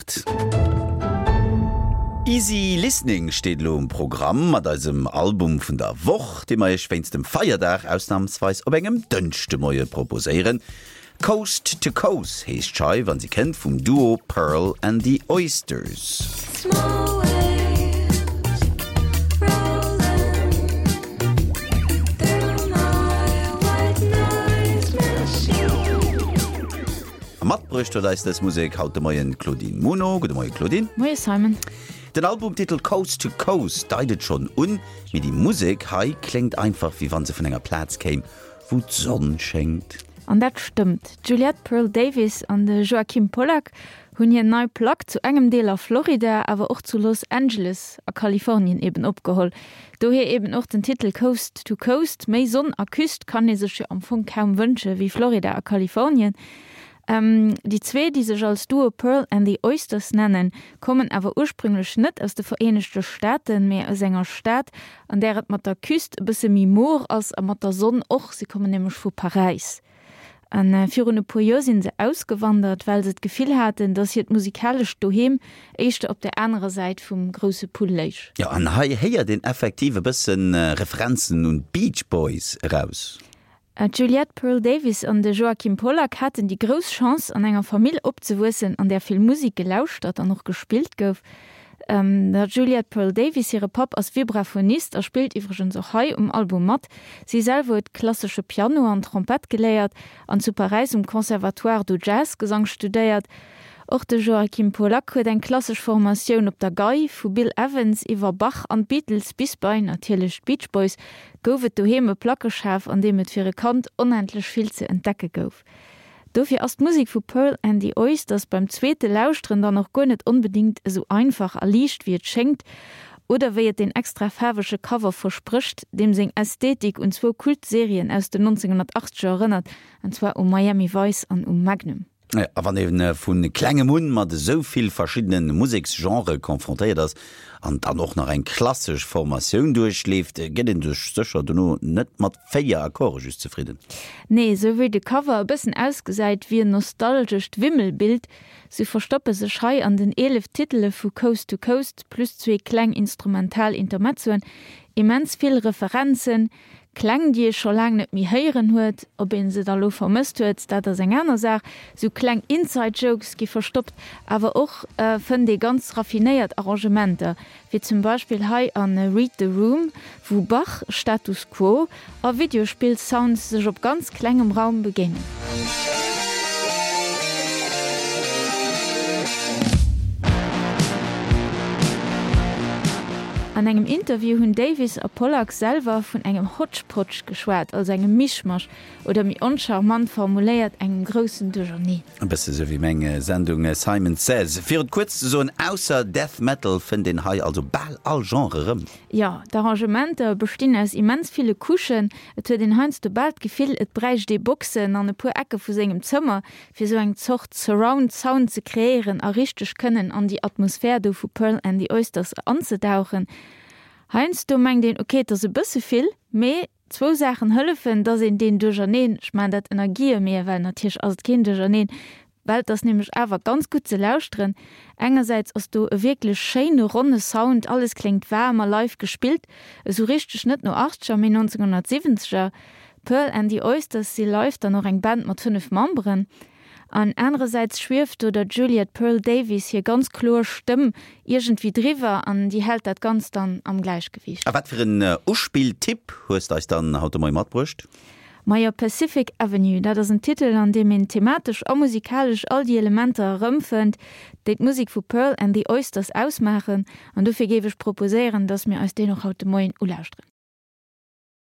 8. Easy Listening steet elo um Programm mat eisem Album vun der Woch, dee mer iech wéinst dem Feierdag ausnamsweis op engem Dënschdemoie proposéieren. Coast to Coast heescht d'Scheif an si kënnt vum Duo Pearl and the Oysters. A matbruecht huet eis dës Musek haut de Moien d'Claudine Muno. Gudde Moie Claudine. Moie Simon. Den Albumtitel Coast to Coast deit et schonn un, mee déi Musek hei kléngt einfach wéi wann se vun enger Plaz kéim, wou d'Sonn schéngt. An dat stëmmt. D'Juliette Pearl Davis an de Joachim Pollack hunn hir nei Plack zu engem Deel a Florida, awer och zu Los Angeles a Kalifornien eben opgeholl. Dohier eben och den Titel Coast to Coast. Méi Sonn a Küst kann ee sech jo am Fong kaum wënsche wéi Florida a Kalifornien. Déi zwee, déi sech als Duo Pearl and the Oysters nennen, kommen awer ursprünglech net aus de Vereenegte Staaten, mee aus enger Stad, an där et mat der Küst e bësse méi mor ass a mat der Sonn och. Si kommen nämlech vu Paräis. A virun e puer Joer si se ausgewandert, well se d'Gefill haten, datt hiert musikalescht Doheem éischter op der anerer Säit vum grousse Pull léich. Jo, an hei héiert een effektiv e bësse Referenzen un d'Beach Boys eraus. D'Juliette Pearl Davis an de Joachim Pollack haten déi grouss Chance, an enger Famill opzewuessen, an där vill Musek gelauschtert an och gespillt gouf. Der Juliette Pearl Davis hire Papp ass Vibraphonist a spillt iwwregens och hei um Album mat. Si selwer huet klassesche Piano an Trompett geléiert an zu Paräis um Conservatoire do Jazz-Gesang studéiert. Och de Joachim Pollack huet eng klassesch Formatioun op der Gei, vu Bill Evans iwwer Bach an d'Beatles bis bei, natierlech, d'Beach Boys, gouf et doheem e Plackeschaf, an deem et fir e Kand onendlech vill ze entdecke gouf. Dofir ass d'Musek vu Pearl and the Oysters beim zweete Lauschteren dann och guer net onbedéngt esou einfach a liicht wéi et schéngt, oder wéi et deen extra faarwege Cover versprécht, deem seng Ästhetik un zwou Kult-Serien aus den 1980er erënnert, an zwar u Miami Vice an u Magnum. A wann ee vu klengem un mat esou vill verschiddene Museksgenrë confrontéiert ass an dann och nach eng klassesch Formatioun duerchleeft, gëtt ee sech sécher dono net mat 4 Akkorde just zefridden. Nee, esou wéi de Cover e bëssen ausgesäit wéi en nostalgescht Wimmelbild, sou verstoppe sech hei an den 11 Titele vu Coast to Coast plus zwee kleng instrumental Intermezzoen immens vill Referenzen, Kläng, déi ee scho laang net méi héieren huet. Ob ee se da lo vermësst huet, dat ass eng aner Saach. Sou kleng Inside-Jokes gi verstoppt, awer och fënnt ee ganz raffinéiert Arrangementer, wéi zum Beispill hei a Read the Room, wou Bach, Status Quo a Videospill-Sounds sech op ganz klengem Raum begéinen. An engem Interview hunn Davis a Pollack selwer vun engem Hodgepodge geschwat, also engem Mischmasch, oder méi oncharmant formuléiert, engem groussen Duercherneen. E bësse sou wéi meng Sendung Simon Says. Fir et kuerz ze soen, ausser Death Metal fënnt een hei also bal all Genre erëm. Jo, d'Arrangementer bestinn aus immens ville Couchen. Et huet een heiansdo bal d'Gefill, et bräicht ee Boxen an e puer Ecke vu sengem Zëmmer, fir sou eng Zort Surround Sound ze kreéieren a richteg kënnen an déi Atmosphär do vu Pearl and the Oysters anzedauchen. Heiansdo mengt een, ok, et ass e bësse vill, mee zwou Saachen hëllefen, dass een deen Duercherneen, ech maachen dat ënner Guillemeten, well natierlech ass et keen Duercherneen, well et ass nämlech awer ganz gutt ze lauschteren. Engersäits ass do e wierklech schéine ronne Sound, alles kléngt waarm a live gespillt, esou richteg net no Achtzeger, mee 1970er. Pearl and the Oysters si live dann och eng Band mat 5 Memberen. An anerersäits schwieft do der Juliet Pearl Davies hir ganz kloer Stëmm iergendwéi driwwer an déi hält dat Ganzt dann am Gläichgewiicht. A wat fir en Uspilltipp hues de eis dann haut de Moie matbruecht? Majo, Pacific Avenue, dat ass en Titel an deem een thematesch a musikalesch all déi Elementer erëmfënnt, déi d'Musek vu Pearl and the Oysters ausmaachen. An dofir géif ech proposéieren, dass mir eis deen och haut de Moien ulauschteren.